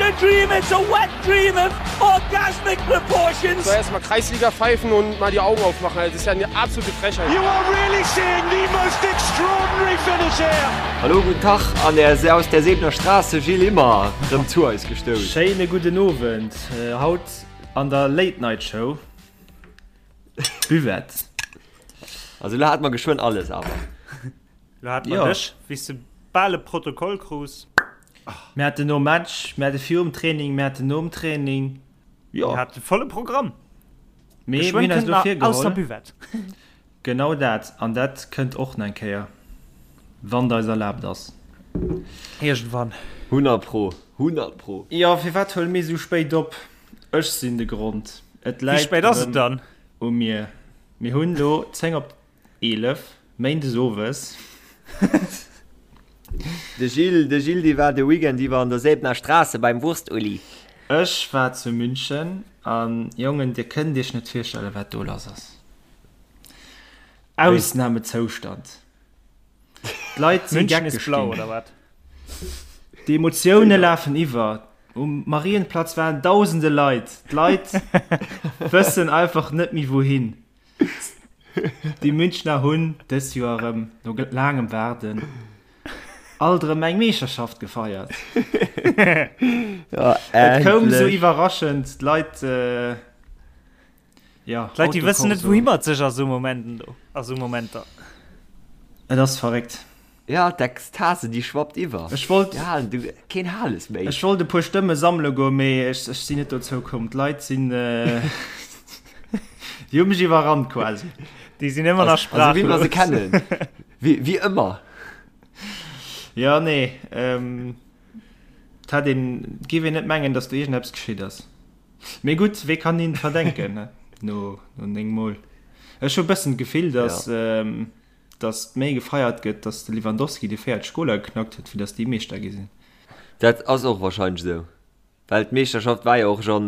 a dream, it's a wet dream of orgasmic proportions. Soll erstmal Kreisliga pfeifen und mal die Augen aufmachen. Also, das ist ja eine absolute Frechheit. You are really seeing the most extraordinary finish here. Hallo, guten Tag an der, aus der Sebener Straße, Gilles Immer, rëm zu eis gestouss. Schéine gudden Owend. Haut an der Late Night Show, Buvette. Also lo hat mer geschwënn alles awer. Lo hat mer dech, wéi s de bal e Protokoll krus. Mir haten nom Match, mir hate virum Training, mir haten nom Training. Jo. Mir hate volle Programm. Mee mir hunn eis elo virgeholl. Aus der Buvette. Genau dat. An dat kënnt och nach eng Kéier, wann et eis erlaabt ass. Iergendwann. 100 pro, 100 pro. Jo, firwat huele mir esou spéit op? Ech sinn de Grond. Et läit erëm u mir. Mir hunn elo 10 op 11, méindes owes. De Gilles, de Gilles, dee war de Weekend iwwer an der Säbener Straße beim Wurst-Uli. Ech war zu München an Jongen, dir kënnt iech net virstellen, wat do lass ass. Ausnamezoustand. D'Leit si geckeg ginn. D'Emotioune lafen iwwer. Um Marienplatz waren dausende Leit. D'Leit wëssen einfach net méi wouhin. Déi Münchner hunn dës Joer erëm, no laangem Waarden, alt erëm eng Meeschterschaft gefeiert. Et koum esou iwwerraschend, d'Leit, jo, D'Leit, déi wëssen net, wouhi mat sech a sou Momenten do, a sou Momenter. Et ass verréckt. Ja, d'Ekstase, déi schwappt iwwer. Ech wollt. Déi halen du keen Hales méi. Ech wollt e puer Stëmme sammele goen, mee ech, ech sinn net dozou komm. D'Leit sinn, déi hu mech iwwerrannt quasi. Déi sinn ëmmer nach sprachlos. Also wéi mer se kennen. Wéi, wéi ëmmer. Ja, nee, et hätt een, et géif een net mengen, datt do iergendeppes geschitt ass. Mee gutt, wee kann hinnen verdenken, ne, no, no 9 Mol. Ech hu e bëssen d'Gefill, datt. Ja. Datt méi gefeiert gëtt, datt de Lewandowski déi 40 Goler geknackt huet, wéi datt déi Meeschter gi sinn. Dat ass och wahrscheinlech esou, well d'Meeschterschaft war jo och schonn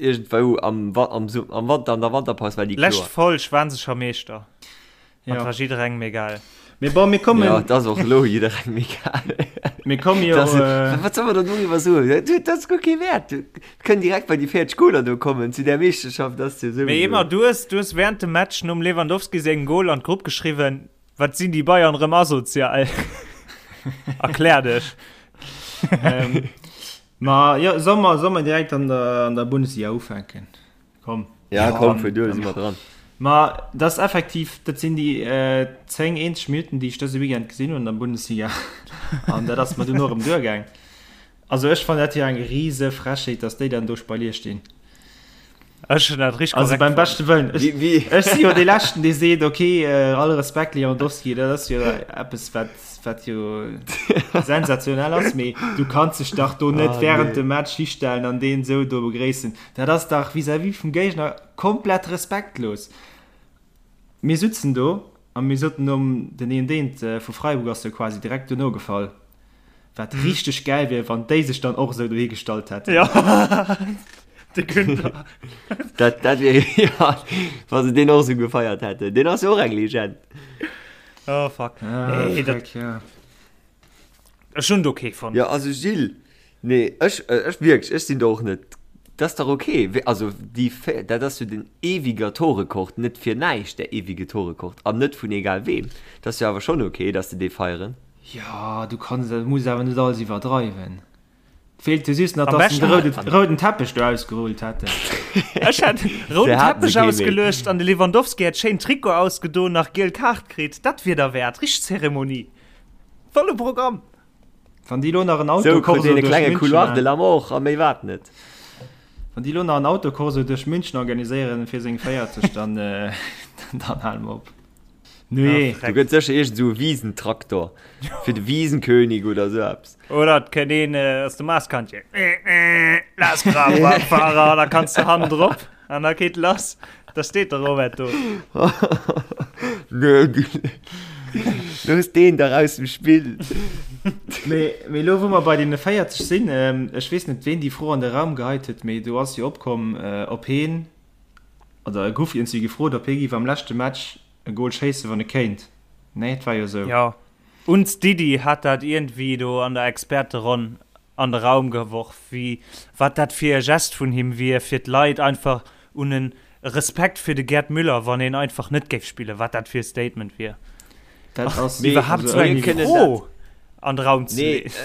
iergendwou am am Wanter, an der Wanterpaus war déi kloer. Lescht Folg waren se scho Meeschter, an et war jidderengem egal. Mee bon, mir kommen. Jo, et ass och elo jidderengem egal. Mir komme jo. Wat soll mer dann doriwwer soen? Dat ass guer kee Wäert. Kënn direkt bei déi 40 Goler do kommen zu där Meeschterschaft ass jo souwisou. Mee Emma, du hues, du hues während dem Match nom Lewandowski sengem Goal an d'Grupp geschriwwen, Wat sinn déi Bayern rëm asozial? Erklär dech. Ähm, ma jo, soll mer, soll mer direkt an der, an der Bundesliga ufänken? Komm. Ja, komm, vun do si mer dran. Ma dat ass effektiv, dat sinn déi äh, 10 eenzeg Minutten, déi ech dëse Weekend gesinn hunn an der Bundesliga. An dat ass mer dunn och erëm duergaang. Also ech fannen dat jo eng riese Frechheet, dass déi dann do Spalier stinn. Ech hunn dat richteg Also beim beschte Wëllen. Ech, wie, wie? ech si jo dee Leschten, dee seet, okay, äh, all Respekt Lewandowski, dat ass jo eppes, wat, wat jo sensationell ass, mee du kanns dech dach do net ah, während nee. dem Match histellen an deen sou do begréissen. Dat ass dach vis-à-vis vum Géigner komplett respektlos. Mir sutzen do a mir soten nom den een deent vu Freiburg ass jo quasi direkt dono gefall, wat richteg gäil wier, wann déi sech dann och esou dohi gestallt hätten. Jo, de Günther. Dat, dat wier, ja, wa se deen och esou gefeiert hätten. Deen ass jo och eng Legend. Oh fuck. Ah, nee, dat, fuck, ja. Ech hunn et ok fonnt. Jo, also Gilles, nee, ech, ech wierklech, ech sinn do och net, dat ass dach ok. Also déi, dat ass jo den ewiger Torrekord, net fir näischt der ewige Torrekord an net vun egal weem. Dat ass jo awer schonn ok, datt se dee feieren. Jo, du kanns, du muss awer net alles iwwerdreiwen. Feelt jo just nach, dass se de rouden Teppech do ausgerullt hätten. Ech hätt rouden Teppech ausgeluecht an de Lewandowski hätt schéin Trikot ausgedoen, nach giel Kaart kritt. Dat wier derwäert, richteg Zeremonie. Volle Programm! Wann déi lo nach en Autokorso duerch München Couloir de la mort a méi wat net. Wann déi lo nach en Autokorso duerch München organiséieren fir seng 40, dann dann hale mer op. Nee. Do gëtt sécher iergend esou e Wisentraktor fir de Wiesenkönig oder esou eppes. Oder et kënnt een aus dem Maaskantje. Lass Fahrer, da kanns de hannen drop. An da geet lass. Da steet de Robert do. Nö, looss deen dach aus dem Spill. Mee, mee elo wou mer bei deene 40 sinn, ech weess net ween déi Fro an de Raum geheit huet, mee do ass jo opkomm, ob heen, oder e gouf iergendwéi gefrot, ob hee giff am leschte Match e Gol schéissen, wann e kéint. Nee, et war jo esou. Jo, uns Didi hat dat iergendwéi do an der Experteronn. an de Raum geworf, wéi wat dat fir e Gest vun him wier, fir d'Leit einfach un en Respekt fir de Gerd Müller, wann een einfach net géif spillen, wat dat fir e Statement wier. Dat ass iwwerhaapt esou eng Fro an de Raum ze leeën.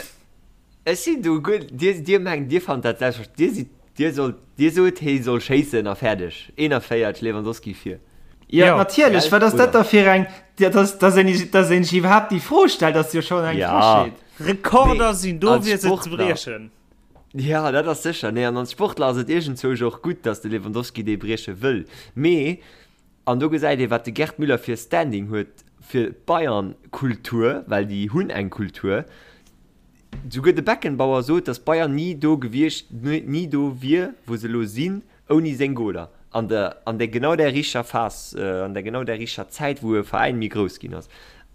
Ech sinn do guer, Dir, Dir mengt, Dir fannt dat selbstverständlech, Dir sidd, Dir sollt, Dir sot, hee soll schéissen a fäerdeg. 41, Lewandowski vir. Jo, natierlech, wat ass dat da fir eng, dass, dass een, dass een sech iwwerhaapt déi Fro stellt, ass jo schonn eng Frechheet. Rekorder sinn do, fir se ze briechen. Jo, dat ass sécher. Nee, an als Sportler ass et iergendzwousch och gutt, dass de Lewandowski dee brieche wëll. Mee, an do gesäit ee, wat de Gerd Müller fir e Standing huet fir d'Bayern-Kultur, well déi hunn eng Kultur. Souguer de Beckenbauer sot, dass Bayern ni do gewiescht, ni do wier, wou se elo sinn, ouni seng Goler an der, an der genau där richter Phas, an der genau där richter Zäit, wou e Veräin méi grouss ginn ass.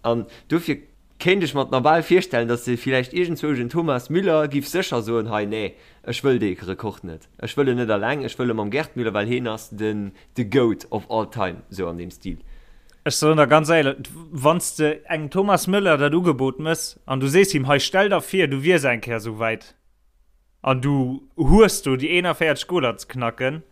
An dofir kéint ech mer et nach bal virstellen, dass se villäicht iergendzwousch en Thomas Müller giff sécher soen, hei, nee, ech wëll dee Rekord net, ech wëll en net alleng, ech wëll e mam Gerd Müller, well heen ass den, the Goat of all time, sou an deem Stil. Ech soen der ganz éierlech, wann s de engem Thomas Müller dat Ugebot mëss an du sees him, hei, stell der vir, du wiers eng Kéier esou wäit, An du hues do déi 41 Goler ze knacken.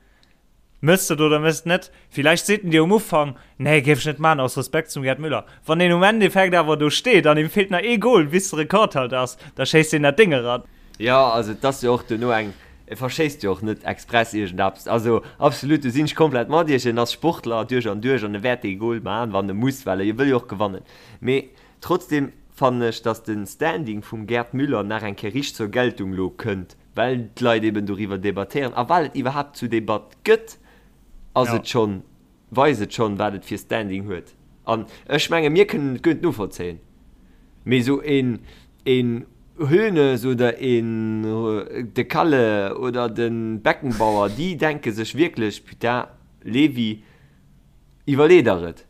Mëss de et oder mëss et net? Villäicht seet en dir um Ufank, Nee, géif ech net maachen, aus Respekt zum Gerd Müller. Wann deen um Endeffekt awer do steet an him feelt nach ee Gol, bis de Rekordhalter ass, da schéisst deen dat Déng eran. Jo, also et ass jo och duerno eng, e verschéisst jo och net express iergendeppes. Also absolut, do sinn ech komplett mat iech. En ass Sportler duerch an duerch an e wäert dee Gol maachen, wann e muss, well e wëll jo och gewannen. Mee Trotzdem fannen ech, dass den Standing vum Gerd Müller nach eng Kéier richteg zur Geltung lo kënnt, well d'Leit eben doriwwer debattéieren a well et iwwerhaapt zu Debatt gëtt, ass et schonn, weist et schonn, wat et fir Standing huet. An ech menge mir kënnen et guer net novollzéien, mee esou een, een Hoeneß oder een de Kalle oder de Beckenbauer, déi denke sech wierklech, Putain, Levi, Iwwerlee der et.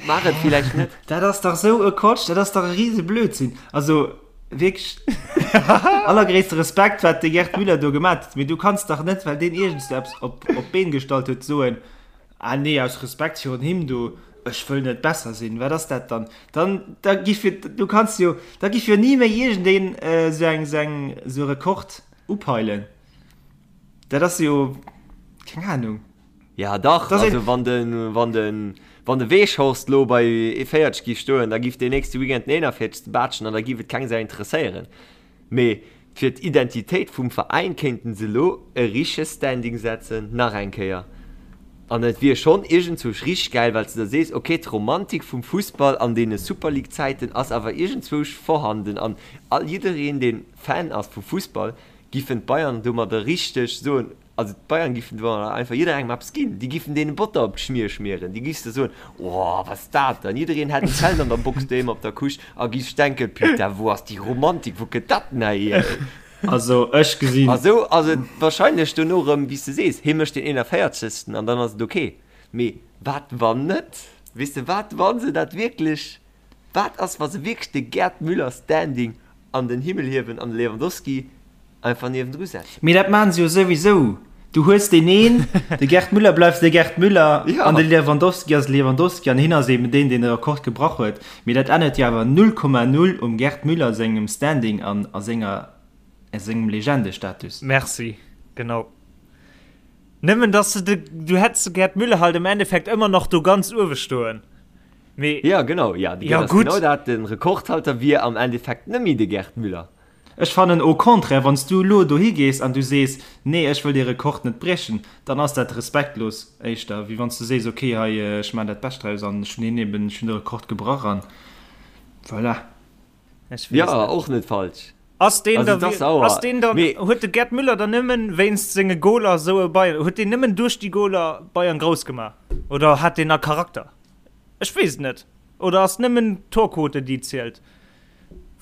Maach et villäicht net. Dat ass dach sou e Quatsch, dat ass dach e rise Blödsinn. Also wierklech allergréisste Respekt, wat de Gerd Müller do gemat huet, mee du kanns dach net, well deen iergendst eppes op op d'Been gestallt huet, soen, ah nee, aus Respekt virun him do, ech wëll net besser sinn. Wat ass dat dann? Dann da giff jo, du kanns jo, da giff jo ni méi iergendeen esou eng esou eng esou e Rekord upeilen. Dat ass jo, keng Ahnung. Ja dach, das also wann den, wann den, wann de Weghorst lo bei 40 giff stoen, da giff deen nächste Weekend den 41. Baatschen an da giff et keng Sau interesséieren. Mee fir d'Identitéit vum Veräin kéinten se lo e richtege Standing setzen, nach eng Kéier. An et wier schonn iergendzwousch richteg gäil, well s de da sees, ok, d'Romantik vum Fussball an deene Super League Zäiten ass awer iergendzwousch vorhanden an all jiddereen deen Fan ass vu Fussball giffen d'Bayern domadder richteg soen, Also d'Bayern giffen do einfach jidderengem eppes ginn. Déi giffen deene Botter op d'Schmier schmieren. Déi giffs de soen, Oh, wat ass dat dann? Jiddereen hätt en Zelt an der Box doheem op der Couche a giff denken, Putain, wou ass déi Romantik, wou kënnt dat denn hier? Also ech gesinn. A sou ass et wahrscheinlech dono erëm, wéi s de sees, hie mécht den 41. an dann ass et ok. Mee wat wann net? Weess de, wat wa se dat wierklech, wat ass wa se wierklech de Gerd Müller Standing an den Himmel hiewen an de Lewandowski Einfach niewendru setzen. Mee dat maachen se jo souwisou. Du hues deen een, de Gerd Müller bleift de Gerd Müller ja. an de Lewandowski ass Lewandowski an hien ass eben deen, deen de Rekord gebrach huet. Mee dat ännert jo awer 0,0 um Gerd Müller sengem Standing an a senger a sengem Legendestatus. Merci, genau. Nëmmen dass de de, du hätts de Gerd Müller halt im Endeffekt ëmmer nach do ganz uewe stoen. Mee ja, genau, ja, ja, gutt. Genau dat, den Rekordhalter wier am Endeffekt nëmme de Gerd Müller. Ech fannen au contraire, wann s du elo dohi gees an du sees, nee ech wëll dee Rekord net briechen, dann ass dat respektlos éischter, wéi wann s du sees, ok hei ech maachen dat Bescht draus an ech hunn hien eben, ech hunn de Rekord gebrach an voilà. Ech weess Ja, net. och net falsch. Ass deen Also da, et ass sauer. ass deen dann, Mee huet de Gerd Müller dann nëmmen wéinst senge Goler esou e Bayern, huet deen nëmmen duerch déi Goler Bayern grouss gemaach oder hat deen nach Charakter? Ech weess et net. Oder ass nëmmen d'Torquote déi zielt?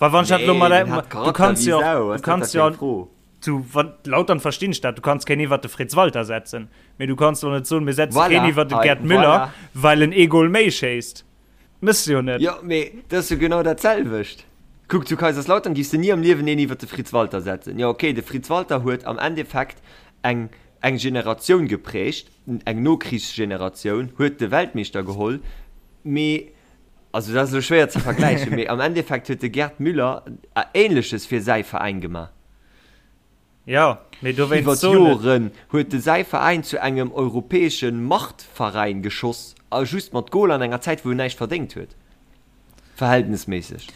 Well wann ich dat lo mal, Nee, den hat du Charakter kannst wéi jo, Sau, du was dat kannst da jo fir eng Fro? zu wann Lautern verstinn ech dat, du kanns keen iwwert de Fritz Walter setzen, mee du kanns doch net soen, mir setzen keen Voilà, iwwert de hei, Gerd Müller, voilà. well en ee Goal méi schéisst. Mëss de jo net. Jo, mee dat ass jo genau dat selwecht. Kuck, zu Kaiserslautern giffs de ni am Liewen een iwwert de Fritz Walter setzen. Jo, okay, de Fritz Walter huet am Endeffekt eng eng Generatioun geprägt, eng Nokrichsgeneratioun, huet de Weltmeeschter geholl, mee Also dat ass elo schwéier ze vergläichen, mee am Endeffekt huet de Gerd Müller Ähnleches fir säi Veräin gemaach. Jo, mee dowéinst Iwwer soen ech. d'Joren huet de säi Veräin zu engem europäesche Machtveräin geschoss, a just mat Goler an enger Zäit wou en näischt verdéngt huet. Verhältnesméisseg.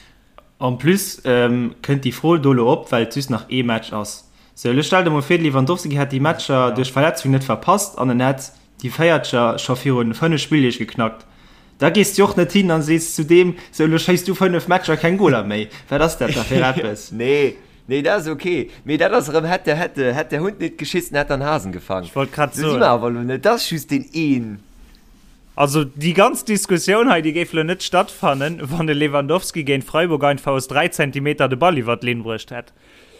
En plus kënnt déi Fro do elo op, well et just nach ee Match ass. Sou, elo stell der mol vir, de Lewandowski hätt déi Matcher duerch Verletzung net verpasst an en hätt déi Véiertger scho virun 5 Spilldeeg geknackt. Da gees du och net hin an sees zu deem, sou elo schéiss du 5 Matcher keng Goler méi. Wat ass dat da fir eppes? Nee, nee, dat ass ok. Mee dat ass erëm, hätt der, hätt der, hätt der Hund nit geschissen, hätt der en Hasen gefangen. Ech wollt grad Sou si soen. mer awer elo net. Dat ass just deen een. Also déi ganz Diskussioun hei, déi géif elo net stattfannen, wann de Lewandowski géint Freiburg einfach aus 3 Zentimeter de Ball iwwer d'Linn bruecht hätt.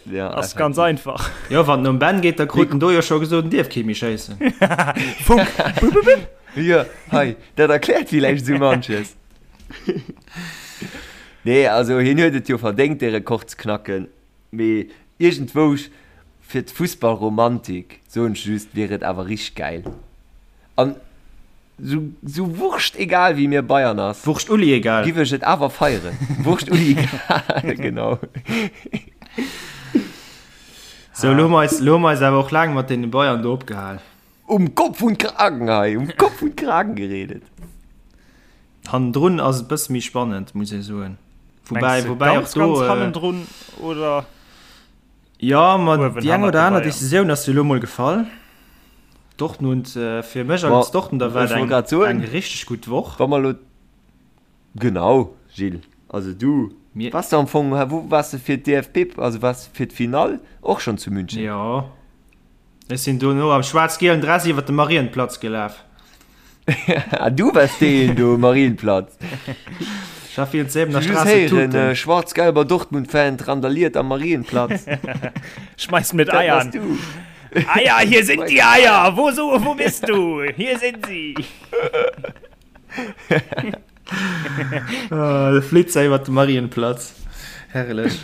Ja, Ass ganz einfach. Jo, wann en um Ben geet, da krut en do jo scho gesot, en dierf kee méi schéissen. Funk! Bup, bup, bup. Jo, hei, dat erkläert villäicht esou manches. Nee, also hien huet et jo verdéngt, dee Rekord ze knacken, mee iergendwou fir d'Fussballromantik, soen ech just, wier et awer richteg gäil. An sou, sou wurscht egal wéi mir Bayern ass. Wurscht Uli egal. Giff ech et awer feieren. Wurscht Uli egal, genau. Sou, lo hu mer eis, lo hu mer eis awer och laang mat deene Bayern do opgehal. Um Kopf und Kragen hei, um Kopf und Kragen geredet. Hannendrun ass et bësse méi spannend, muss ee soen. Woubäi, Mengs de woubäi och ganz, do, ganz äh, hannendrun oder? Jo, ma Uewen déi eng hannert oder de aner Bayern. Decisioun ass jo elo mol gefall. Dortmund, fir mech als Dortmunder war et Ech wollt eng, grad soen, eng richteg gutt Woch. wa mer elo, genau, Gilles, also du Mir. waars de am Fong, wou waars de fir d'DFB, also waars de fir d'Finall och schonn zu München? Jo. Ech sinn dono am schwaarz-gielen Dress iwwer de Marienplatz gelaf. Ah, du wars deen do um Marienplatz. Ech war virun d'Säbener Just Straße héieren, tuten. schwarz-gelber Dortmund-Fan randaliert am Marienplatz. Schmeißt mit Dat Eiern. bass du. Eier, hier sind die Eier. Wo, so, wo bist du? Hier sind sie. Ah, de Flitzer iwwer de Marienplatz. Herrlech.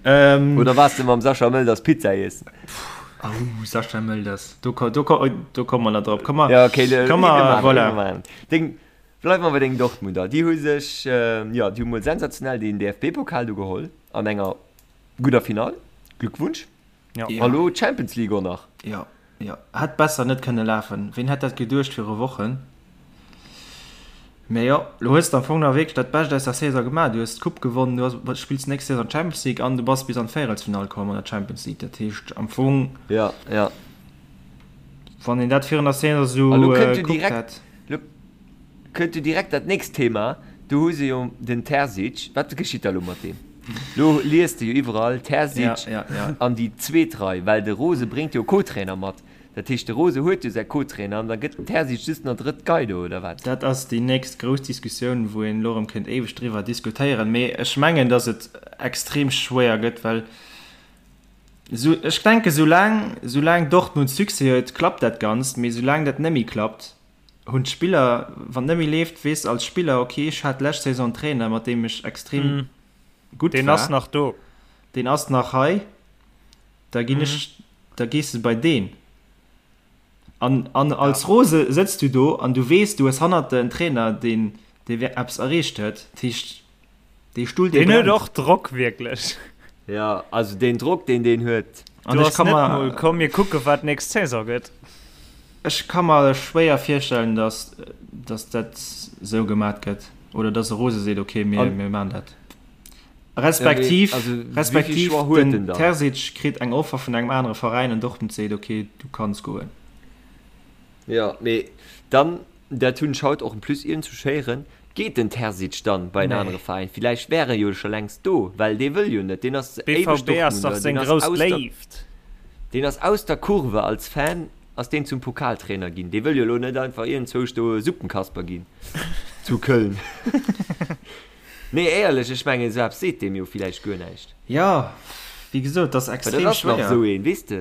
Ähm, Oder wars de mam Sascha Mölders Pizza iessen? Oh, Sascha Mölders. Do, do, do, do komme mer nach drop. Komm mal, Ja, okay, le, komm mal, voilà. Deng, bleif mer bei deng Dortmunder. Déi hu sech, äh, ja, déi hu mol sensationell den DFB-Pokal do geholl an enger gudder Finall. Glückwunsch. Ja. Ja. A lo d'Champions League och nach. Ja, ja. Hätt besser net kënne lafen. Ween hätt dat geduecht viru Wochen? Mee jo, lo hues de am Fong nach wierklech dat Bescht aus der Saison gemaach. Du hues d'Coupe gewonnen, du has, spills nächst Saison d'Champions League an du bass bis an d'Véierelsfinall komm an der Champions League. Dat heescht am Fong, Ja, ja. wann een dat virun der Saison esou A lo kënnt jo gekuckt direkt, hätt. lo kënnt jo direkt dat nächst Thema. Do hu se jo den Terzic. Wat geschitt da lo mat deem? Lo liest de jo iwwerall Terzic Ja, ja, ja. an déi zweet Rei, well de Rose bréngt jo Co-Trainer mat. Dat heescht, de Rose huet jo säi Co-Trainer an da gëtt den Terzic just nach drëtt Gei do, oder wat? Dat ass déi nächst grouss Diskussioun, wou een elo erëm kéint éiweg driwwer diskutéieren. Mee ech mengen, datt et extrem schwéier gëtt, well esou, ech denken, soulaang, soulaang Dortmund Succès huet, klappt dat Ganzt. Mee soulaang dat net méi klappt, hunn d'Spiller, wann et net méi leeft, weess de als Spiller, okay, ech hat d'lescht Saison en Trainer, mat deem ech extrem gutt war. Deen ass nach do. Deen ass nach hei. Da ginn ech, da gees de bei deen. An, an als Rose sëtz du do an du weess, du hues hannert der en Trainer, deen, dee eppes erreecht huet. Dat heescht, dee Stull, dee Deen huet brennt. och Drock, wierklech. Jo, also deen Drock, deen deen huet. An Do ech ass ka net mer, mol, komm mir kucke wat nächst Saison gëtt. ech ka mer schwéier virstellen, datt, datt dat esou gemat gëtt oder datt e Rose seet, okay, mir, An, mir maachen dat. ja, mee, Respektiv, also wéi vill respektiv Choix huet den en dann? Terzic kritt eng Offer vun engem anere Veräin an Dortmund seet, okay, du kanns goen. Jo, mee dann, dat hunn ech haut och en plus iergendwou héieren, geet den Terzic dann bei en Nee. anere Veräin? Villäicht wär e jo scho längst do, well dee wëll jo net, deen ass éiweg BVB ass dach Dortmunder, seng deen ass grouss aus der, Léift. deen ass aus der Kurve als Fan ass deen zum Pokaltrainer ginn. Dee wëll jo elo net einfach iergendzwousch do Suppenkasper ginn zu Köln. Nee, éierlech, ech mengen, esou eppes seet deem jo villäicht guer näischt. Jo, wéi gesot, et ass Well dat extrem ass nach schwéier. esou een, weess de.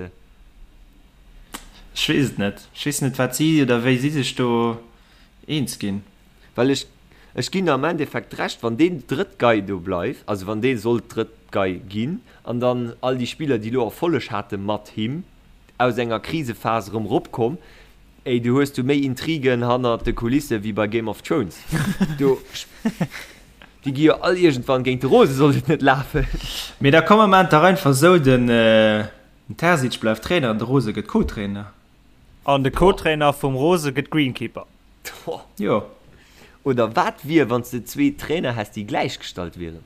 Ech weess et net. Ech weess net, wat si oder wéi si sech do eens ginn. Well ech, ech ginn der am Endeffekt Recht, wann deen drëtt Gei do bleift, also wann dee sollt drëtt Gei ginn, an dann all déi Spiller, déi elo Erfolleg hate mat him, aus enger Krisephas erëm eropkomm, Ey, du hues du méi Intrigen hannert de Kulisse wéi bei Game of Thrones. Do, déi gi jo all iergendwann géint de Rose, sollt et net lafen. Mee da komm mer maan et dach einfach esou, den Terzic bleift Trainer an de Rose gëtt Co-Trainer. An de Co-Trainer vum Rose gëtt Greenkeeper. Jo. Oder wat wier wann s de zwee Trainer häss déi gläichgestallt wieren?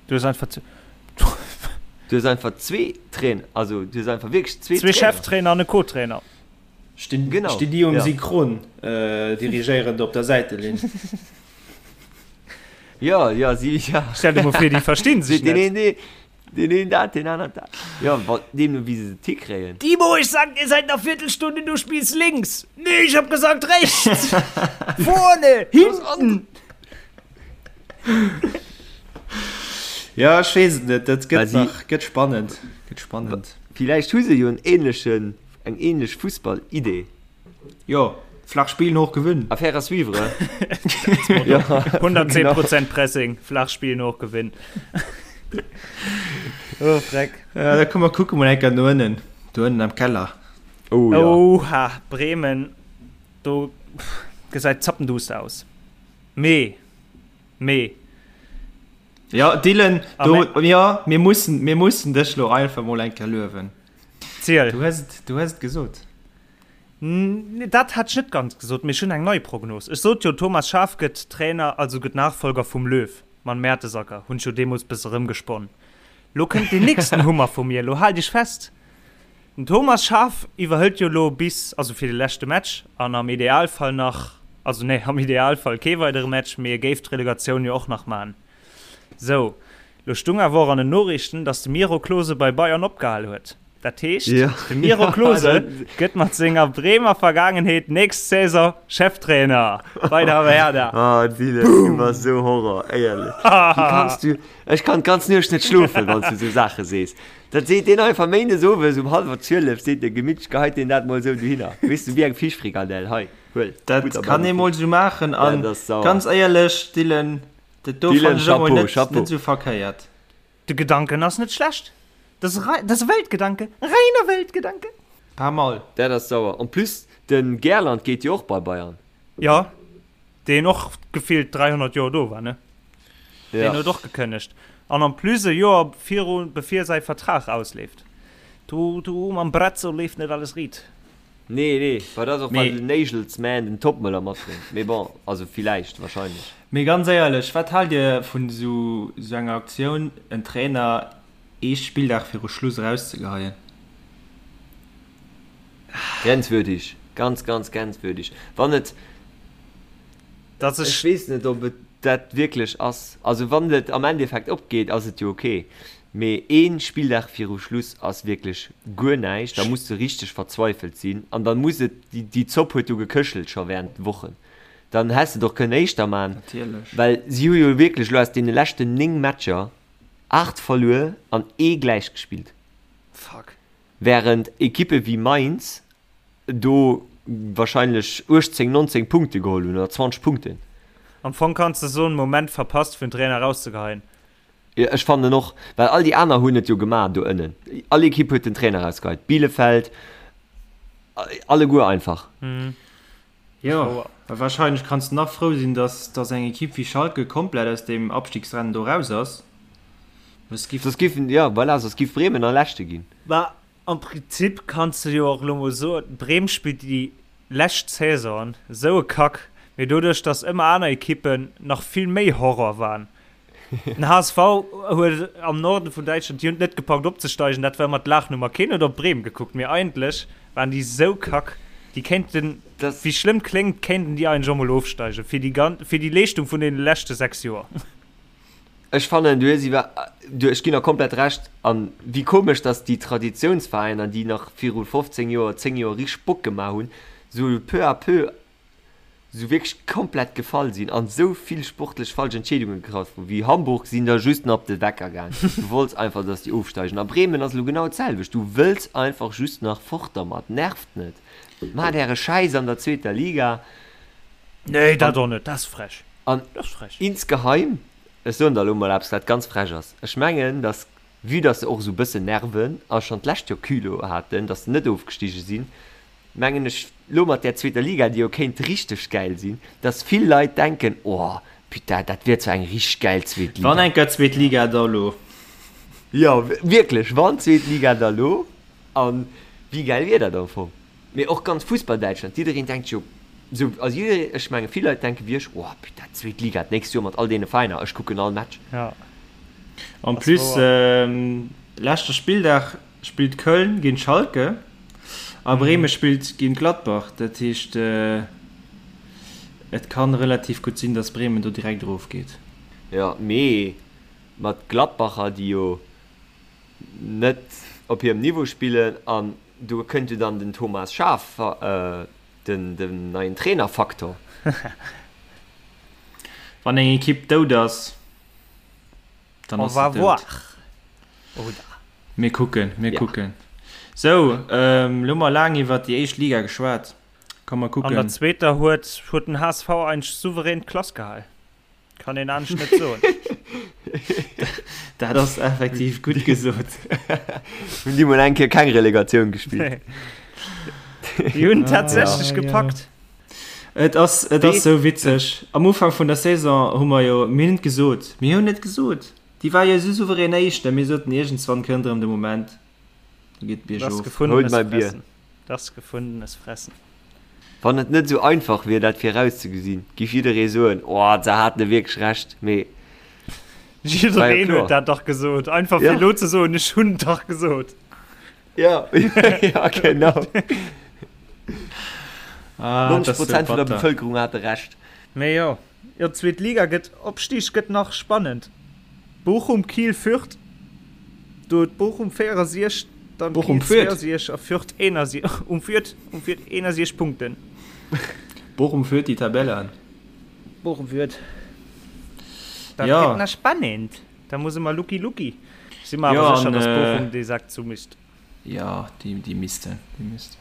Du hues einfach zu. Du hues einfach zwee Trainer, also du hues einfach wierklech zwee Trainer. Zwee Cheftrainer an e Co-Trainer. Stinn, genau. Stinn déi um ja. Synchron äh, dirigéierend op der Säitelinn. Ja, ja, si, ja. Stell dir mol vir, déi verstinn sech net. Den een, den een dat, den aneren dat. Ja, wa, deemno wéi se et hikréien. Timo, ich sag dir seit ner Viertelstunde, du spielst links. Nee, ich hab gesagt rechts. Vorne, hinten. Ja, ech weess et net, dat gëtt nach, gëtt spannend, gëtt spannend. Villäicht hu se jo en ähnlechen, eng ähnlech Fussball-Idee. Jo, flach spillen, hoch gewinnen. Affaire à suivre. Ja, 110 Prozent Pressing, flach spillen, hoch gewinnen. Oh, Freck. Ja, da komm mer kucke mol eng Kéier no ënnen, do ënnen am Keller. Oh ja. Oha, Bremen, do gesäit zappenduster aus. Mee, mee. Ja, Dylan, do, ja, mir mussen, mir mussen dech lo einfach mol eng Kéier luewen. Ziel. Du hues et, du hues et gesot. Dat hat ech net ganz gesot, mee ech hunn eng nei Prognos. Ech sot jo, Thomas Schaaf gëtt Trainer, also gëtt Nachfolger vum Löw. Mam Mertesacker hunn ech jo deemools bësse rëmgesponnen. Lo kënnt deen nächsten Hummer vu mir, lo haalt iech fest. Den Thomas Schaaf iwwerhëlt jo lo bis, also fir de leschte Match an am Idealfall nach, also nee, am Idealfall kee weidere Match, mee e géif d'Relegatioun jo och nach man. Sou, lo stung awer och an den Noriichten, dass de Miro Klose bei Bayern opgehal huet. Dat heescht, de Miro Klose gëtt mat senger Bremer Vergaangenheet nächst Saison Cheftrainer bei der Werder. Ah Dylan, du bass esou Horror, éierlech. Wéi kanns du, ech kann d'ganz Nuecht net schlofen, wann s du esou Saache sees. Dat seet deen einfach méindes owes um hallwer 12, seet de gemittlech, geheit deen dat mol esou dohinner, weess du, wéi eng Fischfrikadell, hei, huel, Dat Butter bei kann de ee mol Fisch. esou maachen an Dat ass sauer. ganz éierlech, Dylan, dat do Dylan, fannen ech emol Chapeau, net, Chapeau. net esou verkéiert. De Gedanken ass net schlecht. Dat ass e, dat ass e Weltgedanke, e reiner Weltgedanke. Paar Mal. Dat ass sauer. En plus, de Gerland geet jo och bei Bayern. Jo, deen och gefillt 300 Joer do war, ne? Deen huet och gekënnegt. An en plus e Joer viru bevir säi Vertrag ausleeft. Do, do mam Brazzo leeft net alles riit. Nee, nee, well dat ass och well den Nagelsmann den Toppmöller matbréngt. Mee bon, also villäicht, wahrscheinlech. Mee ganz éierlech, wat haalt Dir vun esou enger Aktioun, en Trainer ee Spilldag viru Schluss erauszegeheien? Grenzwürdig, ganz, ganz grenzwürdig. Wann et, Dass ech ech. weess net, ob et dat wierklech ass. Also wann et am Endeffekt opgeet, ass et jo ok. Mee ee Spilldag viru Schluss ass wierklech guer näischt. Da muss de richteg verzweifelt sinn an dann muss et, déi Zopp huet jo geköchelt scho während Wochen. Dann häss de et och kënnen éischter man, Natierlech. well si hu jo wierklech elo aus deene leschten 9 Matcher 8 verluer an ee gläich gespillt. Fuck. Während Ekippe wéi Mainz do wahrscheinlech 18, 19 Punkte geholl hunn oder 20 Punkten. Am Fong kanns de soen, Moment verpasst fir den Trainer erauszegeheien. Jo, ech fannen och, well all déi aner hunn et jo gemaach do ënnen. All Ekipp huet den Trainer erausgeheit. Bielefeld, alleguer einfach. Jo, a wahrscheinlech kanns de nach frou sinn, dass dass eng Ekipp wéi Schalke komplett aus deem Abstiegsrennen do raus ass. Soss giff. Soss giffen, jo, voilà, soss giff Bremen nach Leschte ginn. Bah, am Prinzip kanns de jo och elo mol soen, Bremen spillt déi lescht Saison esou e Kack, mee doduerch, dass ëmmer aner Ekippen nach vill méi Horror waren, Den HSV huet am Norden vun Däitschland, déi hunn et net gepackt opzesteigen, dat war ëmmer d'Laachnummer. Keen huet op Bremen gekuckt, mee eigentlech waren déi sou kack, déi kéinten, wéi schlëmm kléngt, kéinten déi eigentlech och mol ofsteigen, fir déi gan-, fir déi Leeschtung vun deene leschte 6 Joer. Ech fannen, du hues iwwer, du, ech ginn der komplett Recht. An wéi komesch, datt déi Traditiounsveräiner, déi nach viru 15 Joer, 10 Joer richteg Bock gemaach hunn, sou peu à peu sou wierklech komplett gefall sinn an sou vill sportlech falsch Entscheedunge getraff hunn, wéi Hamburg sinn der just nach op de Wecker gaang. Du wollts einfach, dass déi ofsteigen. A Bremen ass elo genau d'selwecht, du wëlls einfach just nach fort dermat. Nervt net. Maacht äre Schäiss an der zweeter Liga. Nee, dat och net, dat ass frech. An insgeheim, ech soen der elo mol eppes, wat ganz frech ass, ech mengen, dass, vue dass se och esou e bëssen nerven a schonn d'lescht Joer Culot haten, dass se net ofgestige sinn, mengen ech, lo mat där zweeter Liga, déi jo kéint richteg gäil sinn, dass vill Leit denken, oh putain, dat wier zwar eng richteg gäil zweet Liga. Wann eng Kéier zweet Liga, da lo. Jo, wierklech, wann zweet Liga, da lo. An wéi gäil wier dat am Fong? Mee och ganz Fussball-Däitschland, jiddereen denkt jo sou, also jiddereen, ech menge vill Leit denke wéi ech, oh putain, zweet Liga d'nächst Joer mat all deene Veräiner, ech kucken all Match. Ja. En plus, leschte Spilldag spillt Köln géint Schalke a Bremen spillt géint Gladbach. Dat heescht, et kann relativ gutt sinn, datt Bremen do direkt erofgeet. Jo, mee mat Gladbacher, déi jo net op hirem Niveau spillen an do kënnt jo dann den Thomas Schaaf, den den neien Trainerfaktor. Wann eng Ekipp dout ass, dann ass se dout. Mir kucken, mir kucken. Sou, elo hu mer laang iwwert déi éischt Liga geschwat. Komm mer kucken. An der zweeter huet huet den HSV eigentlech souverän d'Klass gehal. Kann een anescht net soen. Dat ass effektiv gutt gesot. Hunn déi mol eng Kéier keng Relegatioun gespillt. Déi hunn tatsächlech gepackt. Et ass, et ass sou witzeg. Am Ufank vun der Saison hu mer jo, mir hunn et gesot, mir hunn et gesot, déi war jo esou souverän Éischter, mir soten, iergendswann kënnt erëm de Moment, do geet et biergof. Holt mäi Bier. Das gefundenes Fressen. Wann et net esou einfach wier dat virauszegesinn, giff jidderee soen, oh se haten wierklech Recht, mee war jo Jiddereen kloer. huet dat dach gesot. Einfach fir elo ze soen, ech hunn et dach gesot. Ja, ja genau. Ah, 90 Prozent vun der Bevëlkerung hate Recht. Mee jo, jo d'zweet Liga gëtt, Opstig gëtt nach spannend. Bochum, Kiel, Fürth, do huet Bochum 64, dann Bochum Kiel führt. 62 a Fürth 61, um Fürth, um Fürth 61 Punkten. Bochum führt déi Tabelle an. Bochum führt. Dat ja. gëtt nach spannend. Da muss ëmmer Lucky Lucky. Ech si mer awer Ja, sécher, an, dass äh, Bochum dee Sak zumischt. Ja, déi, déi missten, déi missten.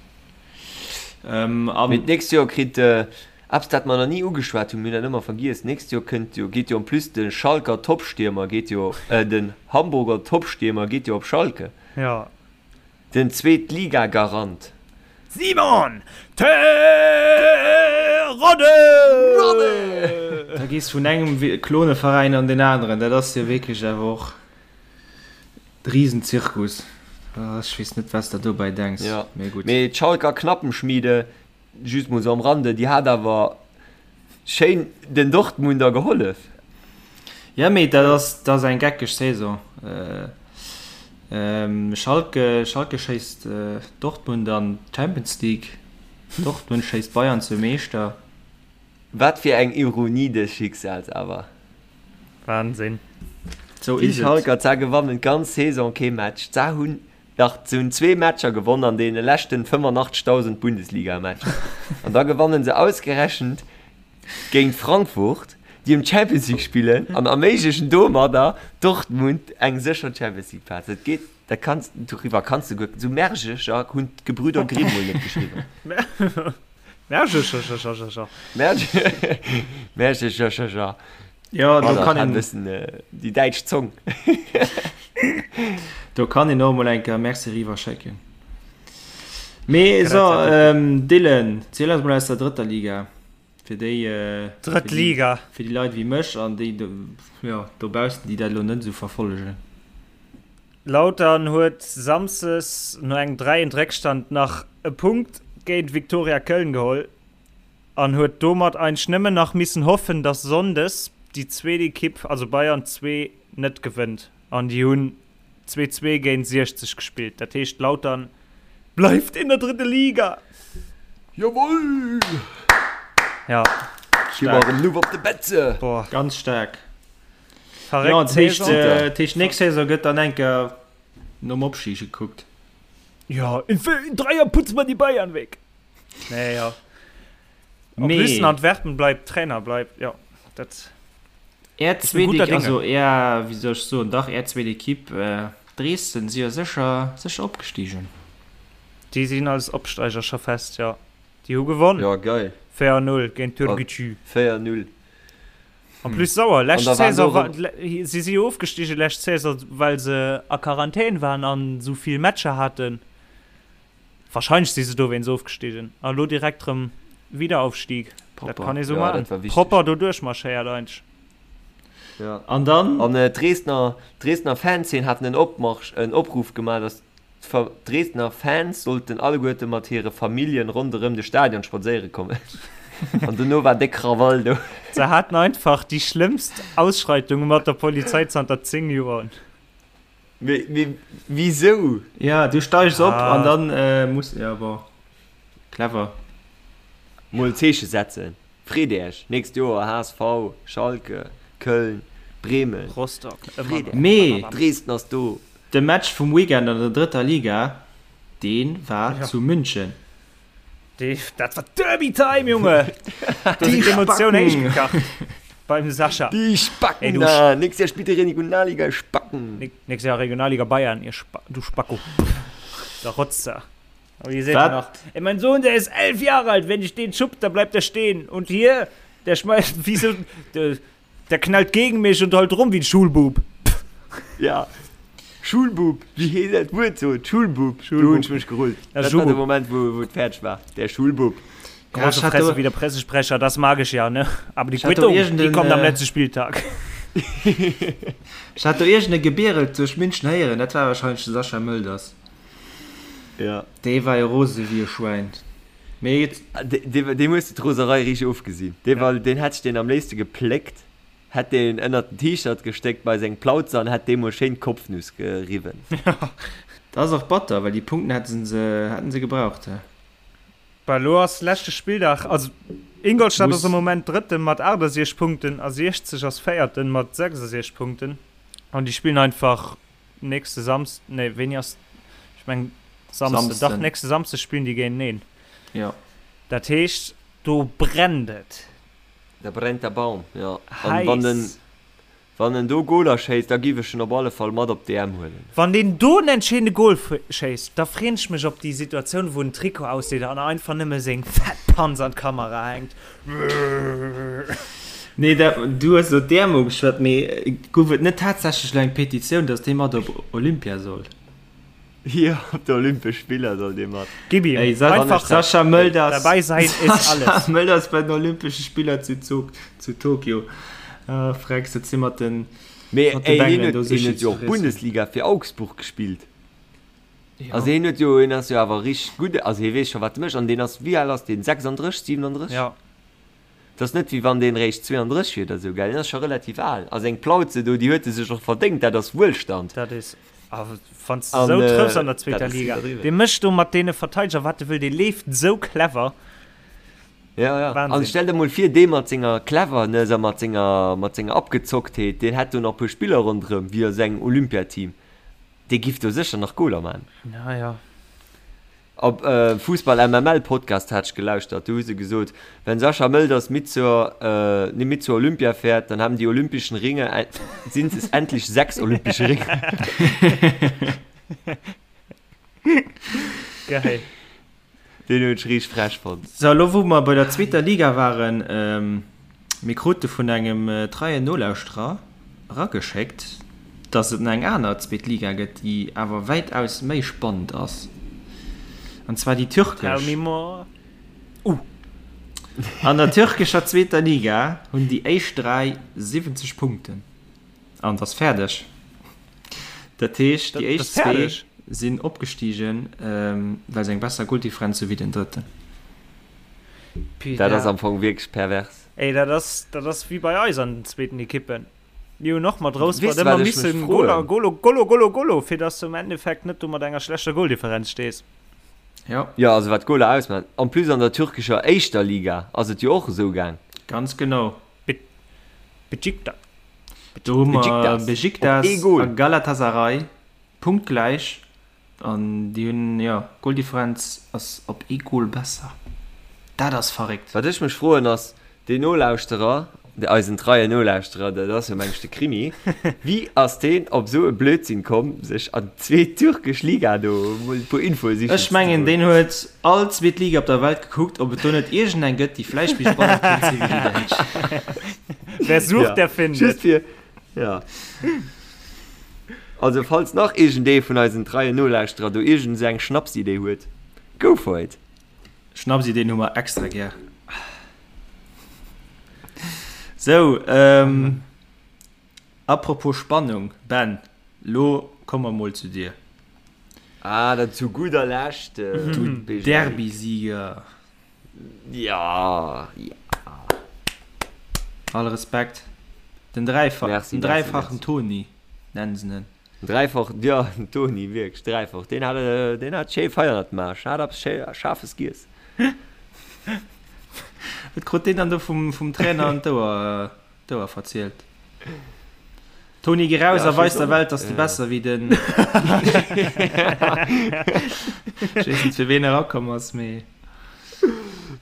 Ähm, an. Mee d'nächst Joer kritt eppes dat mer nach ni ugeschwat hunn, mir hunn dat ëmmer vergiess, d'nächst Joer kënnt jo, geet jo en plus de Schalker Topstiermer geet jo, den Hamburger Topstiermer geet jo op Schalke. Ja. Den Zweetligagarant. Simon Terodde! Da gees vun engem Kloneveräin an deen aneren, dat ass jo wierklech awer och. Riesenzirkus. Ech weess net wats der dobäi denks, Ja, mee gutt. mee d'Schalker Knappenschmiede, just mol sou am Rande, déi hat awer schéin den Dortmunder gehollef. Ja, mee dat ass, dat ass eng geckeg Saison. Schalke, Schalke schéisst Dortmund an d'Champions League, Dortmund schéisst Bayern zum Meeschter. Wat fir eng Ironie des Schicksals awer. Wahnsinn. Sou Déi is et. Schalker, za gewannen d'ganz Saison kee Match. Za hunn dach, se hunn zwee Matcher gewonn an deene leschten 85.000 Bundesliga-Matcher. An da gewannen se ausgerechent géint Frankfurt, déi ëm d'Champions League spillen an erméiglechen domadder Dortmund eng sécher Champions League Plaz. Dat geet, dat kanns, doriwwer kanns de guer, sou Märchecher hunn d'Gebrüder Grimm mol net geschriwwen. Märchecherchercher. Märchecherchercher. Ja, do kann een bëssen déi däitsch Zong. Do kann een och mol eng Kéier Merci eriwwer schécken. Mee so, Dylan, ziel eis mol aus der drëtter Liga. Fir déi, Drëtt Liga. Fir déi Leit wéi mech an déi do, jo, dobaussen, déi dat elo net esou verfollegen. Lautern huet Samsdes no engem 3 eent Réckstand nach e Punkt géint Viktoria Köln geholl an huet domat eigentlech nëmmen nach missen hoffen, dass Sonndes déi zweet Ekipp, also Bayern 2, net gewënnt. An déi hunn 2, 2 géint 60 gespillt. Dat heescht Lautern bleift in der dritten Liga. Jawoll! Ja, Gi mer staark. erëm Luef op de Betze! Boah. Ganz staark. Verréckt Ja, dat heescht, Saison. äh, dat heescht, nächst Saison gëtt dann enker nom Opstig gekuckt. Ja, in, in drei Jahren putzen wir die Bayern weg. Nee, ja. En Mee- plus in Antwerpen bleibt Trainer, bleibt, ja, dat. Är Ich bin zweet, guter Dinge. also är, wéi soll ech soen, dach är zweet Ekipp, äh, Dresden, si jo sécher, sécher opgestigen. Déi sinn als Opsteiger scho fest, ja. Déi hu gewonn. Ja, geil. 4-0 géint Türkgücü. 4-0. En plus sauer, lescht An da waren Saison do war, erëm- si si jo ofgestigen lescht Saison, well se a Quarantän waren an esou vill Matcher haten. Wahrscheinlech si se dowéinst ofgestigen. A lo direkt rëm Wiederaufstieg. Dat Propper. kann ee sou Ja, maachen. dat war wichteg. Propper do duerchmarschéiert eigentlech. Ja. An dann. An d'Dresdner, d'Dresdner Fanszeen haten en Opmarsch, en Opruff gemaach, datt d'Dresdner Fans sollten alleguerte mat hire Familljen ronderëm de Stadion spadséiere kommen. An dono war déck Krawall do. Se haten einfach déi schlëmmst Ausschreitunge mat der Polizei zanter 10 Joer. Mee, mee wisou? Ja, du steigs op an dann muss, ja bon, clever. Mol Zeeche setzen. Freet Äech, nächst Joer HSV, Schalke, Köln, Bremen, Rostock, ëmmer nach. Mee Dresden ass do. De Match vum Weekend an der drëtter Liga, dee war zu München. Dee, dat war Derby Time, Junge! Do sinn d'Emotioun héich gekacht beim Sascha. Déi Spacken da! Nächst Jahr spillt dir Regionalliga, ihr Spacken! Nächst Jahr Regionalliga Bayern, ihr Spa du Spacko. Der Rotzer. Aber ihr seht ja noch. Ey, mein Sohn, der ist elf Jahre alt. Wenn ich den schupp, dann bleibt er stehen. Und hier, der schmeißt, wie so, der, der knallt gegen mich und heult rum wie ein Schulbub. Ja. Schulbub, wie heet dat Wuert so? Schulbub. Schulbub. Do hunn ech mech gerullt. Ja, Dat war Schulbub. de Moment, wou, wou et fäerdeg war. Der Schulbub. Große ich hatte- Fresse wie der Pressesprecher, das mag ich ja, ne? Aber die Ich hatte Quittung, die irgendeinen, kommt am äh, letzten Spieltag. Ech hat do iergend e Gebierelt duerch München héieren, dat war wahrscheinlech de Sascha Mölders. Ja. Dee war jo rose wéi e Schwäin. Mee et. Deem hues de d'Roserei richteg ofgesinn. Dee war, deen hätt ech deen am léifste gepléckt, hätt deen ënnert den T-Shirt gestéckt bei seng Plauze an hätt deem mol schéin d'Kopfnuss geriwwen. Dat ass och batter, well déi Punkten hätte se, hätten se gebraucht. Bah, elo ass leschte Spilldag, also Ingolstadt ass Muss. am Moment Drëtten mat 68 Punkten a 60 ass Véierten mat 66 Punkten an déi spillen einfach Nächste Samsden, nee, wéini ass, ech mengen Samsden, dach, Samsden. nächste Samsde spillen déi géinteneen. Jo. Dat heescht, do brennt et. Da brennt der Baum, jo. An wann en, Heiss. wann en do Goler schéisst, da giff ech en op alle Fall mat op d'EM huelen. Wann deen do en entscheedende Gol schéisst, da freen ech mech op déi Situatioun, wou en Trikot ausdeet an einfach nëmme seng fett Panz an d'Kamera hänkt. Nee, dat, du hues elo d'EM ugeschwat, mee gouf et net tatsächlech elo eng Petitioun, datt dee mat op Olympia soll? Jo, op de Olympesch Spiller soll dee mat. Gib ihm. Ey, Sa Einfach Sascha Mölders, dabei sein ist alles. Sascha Mölders bei den Olympesche Spiller zu, Zog, zu Tokio. Ah, Frecks, dat si mat den, Mee mat de ey, hien Bengelen huet, do hien Sushi huet ze jo och friessen. Bundesliga fir Augsburg gespillt. Jo. Also hien huet jo, hien ass jo awer richteg gutt, also hie weess scho wat e mécht an deen ass, wéi al ass deen, 36, 37? Ja. Et ass net wéi wann deen réischt 32 wier oder sou, gell, deen ass scho relativ al. A seng Plauze do, déi huet e sech och verdéngt, dat ass Wuelstand. Dat is, a wann s de An sou trëffs an der dat zweeter ass Liga, iwwerdriwwen. dee mécht do mat deene Verteideger wat e wëll, dee leeft sou clever. Ja, ja. An Wahnsinn. stell der mol vir, dee mat senger Cleverness a mat senger, mat senger Abgezocktheet, deen hätt do nach e puer Spiller ronderëm, wéi a sengem Olympiateam. Dee giff do sécher nach Goler man. Ja, ja. Op Fussball MML Podcast hat ech gelauschtert, do hu se gesot, wenn Sascha Mölders mit zur, nee, mit zur Olympia fährt, dann haben die olympischen Ringe, sind es endlich sechs olympische Ringe. Geil. Deen hunn ech riicht frech fonnt. So, elo wou mer bei der zweeter Liga waren, mir krute vun engem treien Nolauschterer erageschéckt, dass et nach eng aner zweet Liga gëtt, déi awer wäitaus méi spannend ass, an zwar déi Tell türkesch. me more. Uh. An der türkescher zweeter Liga hunn déi éischt 3 70 Punkten. An et ass fäerdeg. Dat heescht, déi éischt zwee sinn opgestigen, well se eng besser Goldifferenz hu wéi den Drëtten. Dat ass am Fong wierklech pervers. Ey, dat ass, dat ass wéi bei eis an den zweeten Ekippen. Mir hunn och mat Weess Rouspert de, ëmmer wat ech mech missen froen? Goler, Golo, Golo, Golo, Golo, fir dass du am Endeffekt net do mat enger schlechter Goldifferenz stees. Jo. Jo, also wat d'Goler ausmaachen. En plus an der türkescher éischter Liga ass et jo och esou gaang. Ganz genau. Besiktas. Do hu mer Besiktas op Besiktas ee Goal. a Galatasaray punktgläich an déi hunn, jo, d'Goldifferenz ass op ee Goal besser. Dat ass verréckt. Wat ech mech froen ass, deen Nolauschterer, eisen treien Nolauschterer, dat ass jo meng ech de Krimi, wéi ass deen op esou e Blödsinn komm, sech an d'zweet türkesch Liga do mol e puer Infoe sichen Ech ze mengen, goen? deen huet all zweet Liga op der Welt gekuckt, ob et do net iergendeng gëtt, déi vläicht méi spannend kéint sinn wéi déi däitsch. Wer sucht, Ja, der findet. just fir, ja. Also falls nach iergendee vun eisen treien Nolauschterer do iergend esou eng Schnapsidee huet, go for it! Schnapsideen hu mer extra gär. Sou, ähm. Apropos Spannung, Ben, lo komme mer mol zu dir. Ah, dann zu gudder Lescht, Du Derby-Sieger. Ja, ja. All Respekt. Den dräifach, merci, den dräifachen Toni nennen se en. Dräifach, ja, den Toni, wierklech dräifach. Deen hat, deen hat schéi Feier gemaach, hat eppes schéi Schaarfes giess. Wat krut deen dann do vum, vum Trainer an d'Ouer, d'Ouer verzielt? Toni, geh raus a weis der Welt, dass du besser wéi den. Ech weess net, fir ween erakomm ass, mee.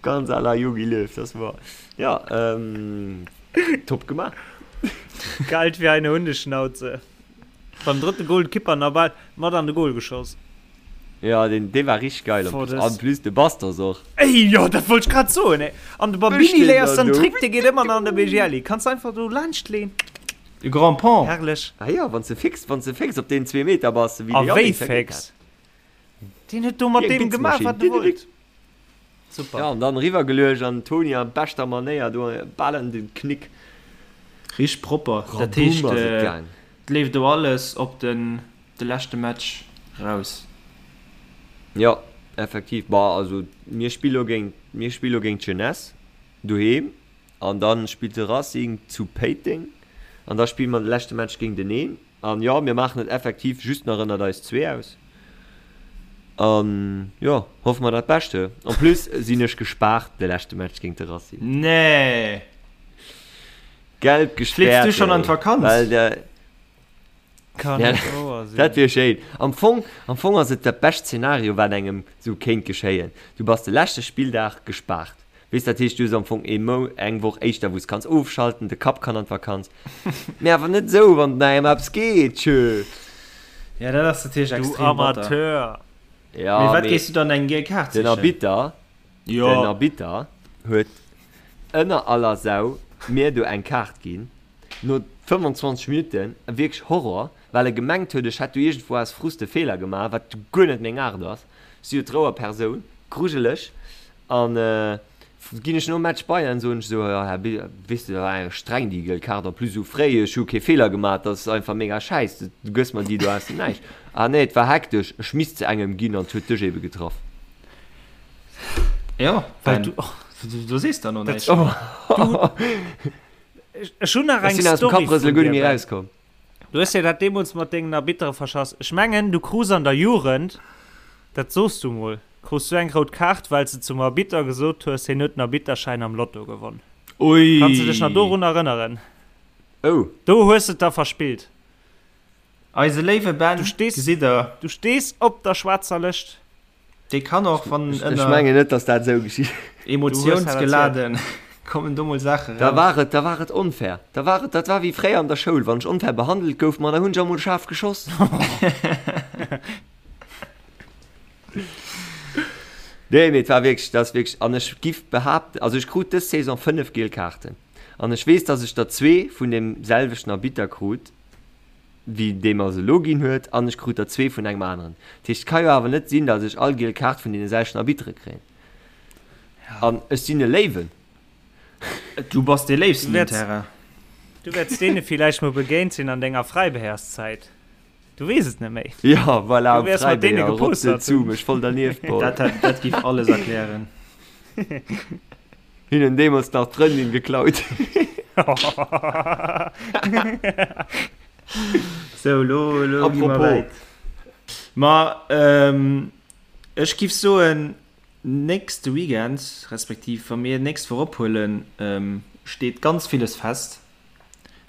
Ganz à la Jogi Löw, das war. Ja, ähm, top gemaach. Kalt wie eine Hundeschnauze. Beim drëtte Goal d'Kipper nach bal mat an de Goal geschoss. Ja, den, dee war richtig geil. Boah, das- An plus de Bastos och. Ey, jo, dat wollt ech grad soen, ey. An de Babini Ech léiers den den do. Trick, dee geet ëmmer nach an de BGL. Kanns du einfach do laanscht leen. De Grand Pont. Herrlech. Ah ja, wann s de fix, wann s de fix op deenen zwee Meter bass, wéi A de wéi Yannick dat geet fix. Deen huet do mat Wéi eng deem gemaach, Blitzmaschinn. wat e wollt. Super. Ja, an dann eriwwer geluecht an den Toni a beschter Manéier do bal an den Knick. Richteg propper. Dat Raboom heescht, ass et gaang. et leeft do alles op den de leschte Match raus. Jo, effektiv. Bah, also mir spille lo géint, mir spille lo géint d'Jeunesse doheem an dann spillt de Racing zu Péiteng an da spille mer de leschte Match géinteneen. An jo, mir maachen et effektiv just nach ënnert eis zwee aus. An jo, hoffe mer dat Bescht. En plus sinn ech gespaart de leschte Match géint de Racing. Nee! Gelb Fligs gespäert, du schonn an ey. d'Vakanz? Well de, Kann ja, net wouer sinn. dat wier schéin. Am Fong, am Fong ass et dat bescht Szenario, wat engem sou kéint geschéien. Du bass de leschte Spilldag gespaart. Weess, dat heescht, du hues am Fong ee Mou, eng Woch éischter, wou s kanns ofschalten, de Kapp kann an d'Vakanz. Mee awer net esou, wann et engem eppes geet, tjö. Ja, dat ass natierlech Du extrem batter. Amateur! Ja, Mee wat mee géifs du dann eng giel Kaart den sichen? Arbitter, den Jo. Arbitter huet ënner aller Sau mir do eng Kaart ginn, no 25 Minutten, wierklech Horror, well e gemengt huet, ech hätt do iergendwou aus Frust e Feeler gemaach, wat guer net meng Aart ass. Ech si jo d'Rouer Persoun, grujeleg. An ginn ech nom Match bei an soen ech esou, jo Här Bi, weess de, war eng streng déi giel Kaart, en plus esou fréi, ech hu kee Feeler gemaach, dat ass einfach mega schäiss, du gëss mer déi do aus dem Näischt. Ah nee, et war hektesch, ech misst se engem ginn an et huet dech ebe getraff. Jo, Well Ben, du, oh, du sees dann och näischt. Ech, ech hunn nach Ech eng sinn aus dem Story Kapprësele vun guer dir, net méi Ben. erauskomm. Du hues dir dat deemools mat dengen Arbittere verschass. Ech mengen, du krus an der Jugend, dat soos du mol, krus du eng rout Kaart, well s de zum Arbitter gesot hues, hien huet den Arbitterschäin am Lotto gewonn. Ui! Kanns de dech nach dorun erënneren? Oh. Do hues de et da verspillt. Eise léiwe Ben, Du stees, gesitt der. du stees op der schwaarzer Lëscht. Dee kann och, wann Ech ënner mengen net, dass dat esou geschitt. Emotiounsgeladen kommen do mol Saache Da raus. war et, da war et onfair. Da war et, dat war wéi fréier an der Schoul, wann ech onfair behandelt gouf, ma da hunn ech emol schaarf geschoss. Nee, mee et war wierklech, dat ass wierklech, an ech giff behaapten, also ech krut dës Saison 5 giel Kaarten an ech weess, dass ech der zwee vun deem selwechten Arbitter krut, wéi dee mer se elo ginn huet, an ech krut der zwee vun engem aneren. Dat heescht, et ka jo awer net sinn, datt ech all giel Kaart vun deene selwechten Arbittere kréien. An ech sinn e Léiwen. Du bass dee Léifsten Du um wäerts, Terrain. du wäerts deene villäicht mol begéint sinn an denger Fräibeherszäit. Du weess et net méi. Jo, voilà, Du am wäers mat deene Fräibeher, rotze gepostert zu hunn. mech voll dernieft, boah. Dat hätt, dat giff alles erklären. Hinnen deemools nach d'Frëndin geklaut. Sou, lo, lo gi mer Apropos. wäit. Ma ähm, ech giff soen, nächste Weekend, respektiv wa mir nächst Woch ophuelen, ähm, steet ganz villes fest.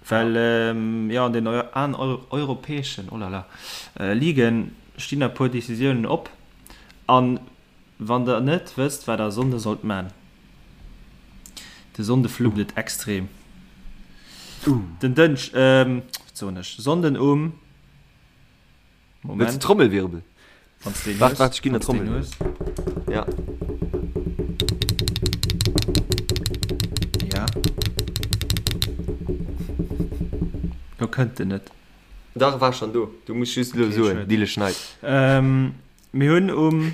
Well ähm, jo, an den Eu an eu europäeschen, oh là là, äh, Ligen stinn e puer Decisiounen op. An Wann der net wësst wat der Sonnde sollt man, de Sonnde fluppt et extrem. Den Dënsch, wat soen ech, Sonnden um, Wëlls Moment, de Trommelwirbel? wann s deen Waart, hues, waart, ech ginn der wann s deen Trommelwirbel. hues. Ja. Ja. Lo kënnt en net. Dach, war schon do. Du muss just elo Okay, soen, schued. Dille schneit. Mir hunn um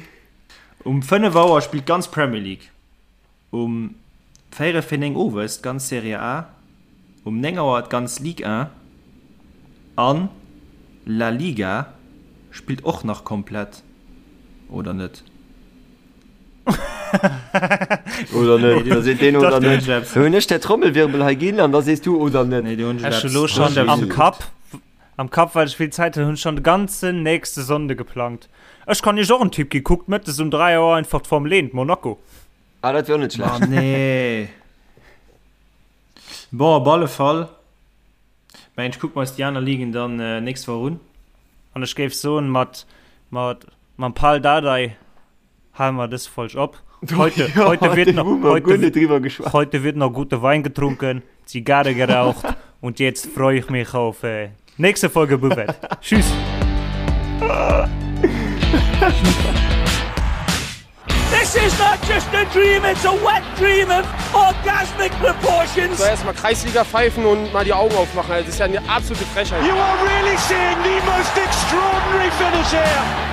um 5 Auer spillt d'ganz Premier League, um véierel fir 9 owes d'ganz Serie A, um 9 Auer d'ganz Ligue 1. An La Liga spillt och nach komplett, oder net? Oder net? Da seet deen oder net. Da hunn ech der Trommelwirbel hei ginn an da sees du oder net. Nee, do hunn ech Ech hu lo schonn am Kapp, am Kapp, well ech vill Zäit hunn, hunn ech schonn de ganzen nächste Sonnde geplangt. Ech kann iech och en Tipp ginn, kuckt mëttes um 3 Auer einfach d'Formel 1, Monaco. Ah, dat wier och net schlecht. Ah, nee. Bon, op alle Fall. Mengen ech kucke mer eis déi aner Ligen dann nächst Woch un. An ech géif soen, mat, mat, mam Pal Dardai hale mer dës Folg op. Heute, Ja, heute wird do noch, hu mer guer heute, net driwwer geschwat. heute wird noch gute Wein getrunken, Zigarre geraucht und jetzt freue ich mich auf äh, nächste Folge Buvette. Tschüss! This is not just a dream, it's a wet dream of orgasmic proportions. So erstmal Kreisliga pfeifen und mal die Augen aufmachen. Das ist ja eine absolute Frechheit. You are really seeing the most extraordinary finish here.